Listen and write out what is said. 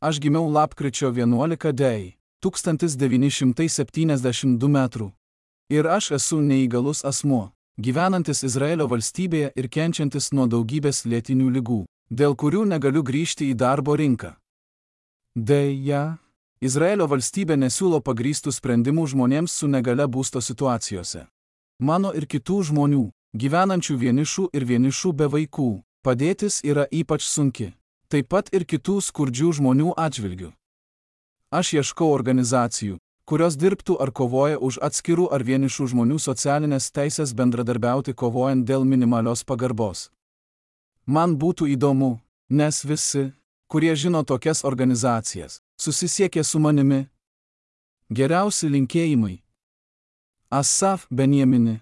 Aš gimiau lapkričio 11 d. 1972 metrų. Ir aš esu neįgalus asmuo, gyvenantis Izraelio valstybėje ir kenčiantis nuo daugybės lėtinių ligų, dėl kurių negaliu grįžti į darbo rinką. Deja, Izraelio valstybė nesiūlo pagrįstų sprendimų žmonėms su negalia būsto situacijose. Mano ir kitų žmonių, gyvenančių vienišų ir vienišų be vaikų, padėtis yra ypač sunki, taip pat ir kitų skurdžių žmonių atžvilgių. Aš ieškau organizacijų, kurios dirbtų ar kovoja už atskirų ar vienišų žmonių socialinės teisės bendradarbiauti kovojant dėl minimalios pagarbos. Man būtų įdomu, nes visi, kurie žino tokias organizacijas, susisiekė su manimi. Geriausi linkėjimai. Asaf Benjamini.